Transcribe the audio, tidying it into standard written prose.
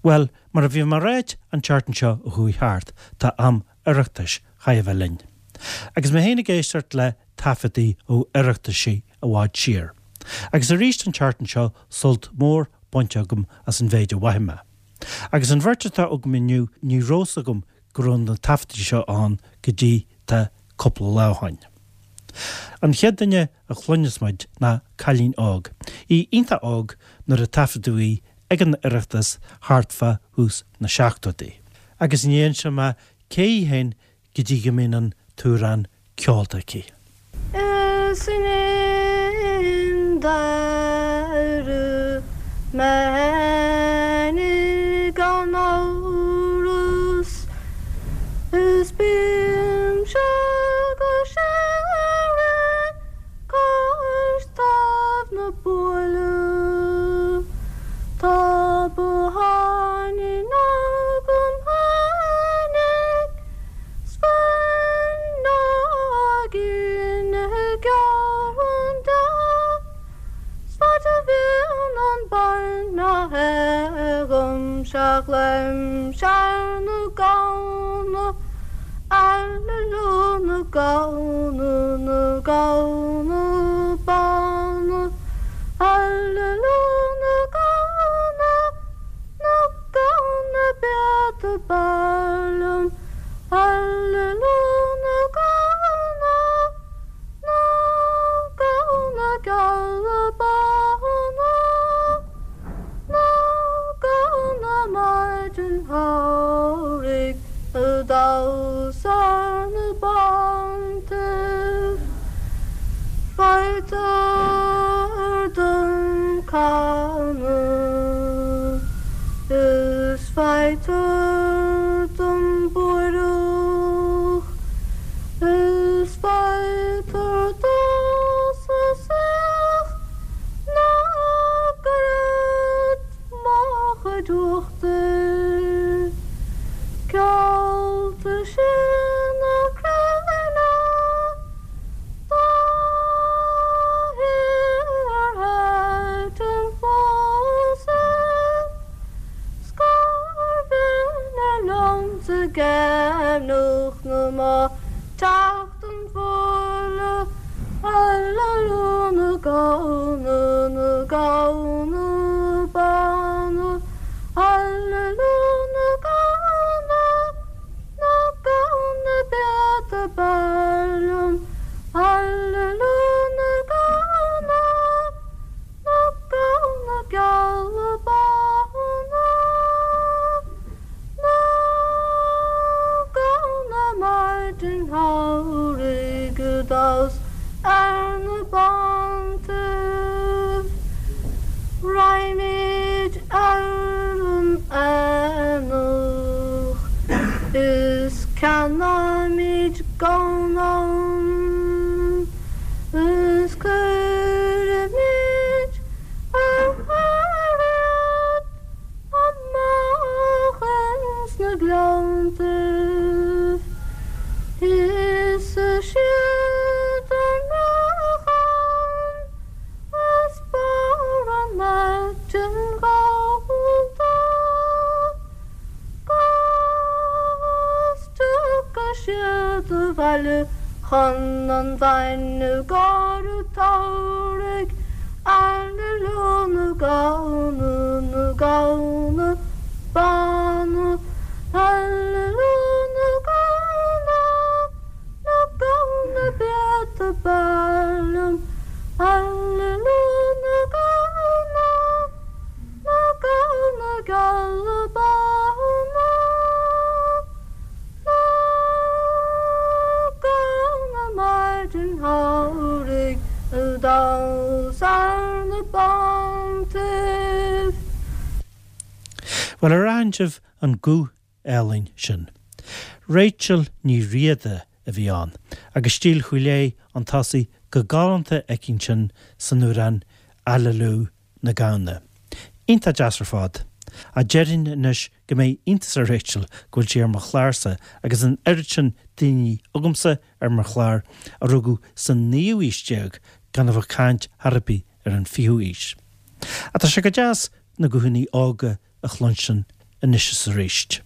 Bhuel, mar a bhí mé a ráit an tseachtain seo a chuaigh thart, tá am Oireachtais chaitheamh a bheith linn. Agus mé féin ag éisteacht le taifeadtaí ó Oireachtaisí i bhfad siar. Agus arís an tseachtain seo sult mór bainte agam as an mhéid a mhaígh mé. Agus an bheirt atá agam inniu ní raibh fhios agam go raibh na taifeadtaí seo ann go dtí tá cúpla lá ó shoin. An chéad duine a chluinfeas muid ná cailín óg, í iontach óg nuair a taifeadadh í ag an Oireachtas thart fá thús na seachtóidí. Agus ní inseoidh mé cé í féin go dtí go mbíonn an t-amhrán ceolta aici. Is in deireadh mé fhéinig gan amhras is bímse go síoraí cois taobh na buaile. Tá botháinín agam fhéinig 's fuinneoigín geal deas 's faid a bhíonn an bainne agam seachlaimse ar na gamhna, aililiú na gamhna, na gamhna bána, aililiú na gamhna. Na gamhna beata b'fhearr liom, Aililiú na gamhna, na gamhna geala bána, Na gamhna maidin shamhraidh ag damhsa ar na bántaibh. Faightear don canadh is faightear don bhuaidhreadh is faightear domhsa saoch ná goirid mo chuid uachtair Ceolta sin a cruinne Dá hiarrtha pósadh 's gur bhinne liomsa geimhneach na mba teacht an bhuaile aililiú na gamhna na gamhna bána aililiú na gamhna Na gamhna beata b'fhearr liom, aililiú na gamhna, na gamhna geala bána, na gamhna maidin shamhraidh ag damhsa ar na bántaibh. Raghaimid ar an aonach is ceannóimid gamhain ann is cuirfimid ar cur iad amach ins na gleanntaibh. Íosfaidh siad an racán. As barr an aitinn ghallda 'gus tiocfaidh siad abhaile chun an bhainne i gcomhair an tsamhraidh. Aililiú na gamhna, na gamhna bána, aililiú na gamhna. Na gamhna beata b'fhearr liom, aililiú na gamhna, na gamhna geala bána, na gamhna maidin shamhraidh ag damhsa ar na bántaibh. Bhuel, ar aithin sibh an guth álainn sin. Rachel Ní Riada a bhí ann, agus stíl Chúil Aodha 'un tosaigh go galánta aici ansin san amhrán Aililiú na Gamhna. Iontach deas ar fad. Ach déarfainn anois go mbeidh iontas ar Rachel go bhfuil sí ar mo chlársa agus an oiread sin daoine agamsa ar mo chlár a rugadh sa naoú haois déag gan a bheith ag caint chor ar bith ar an fichiú haois. Ach tá sé go deas na guthanna óga a chluinstin. anois is arís.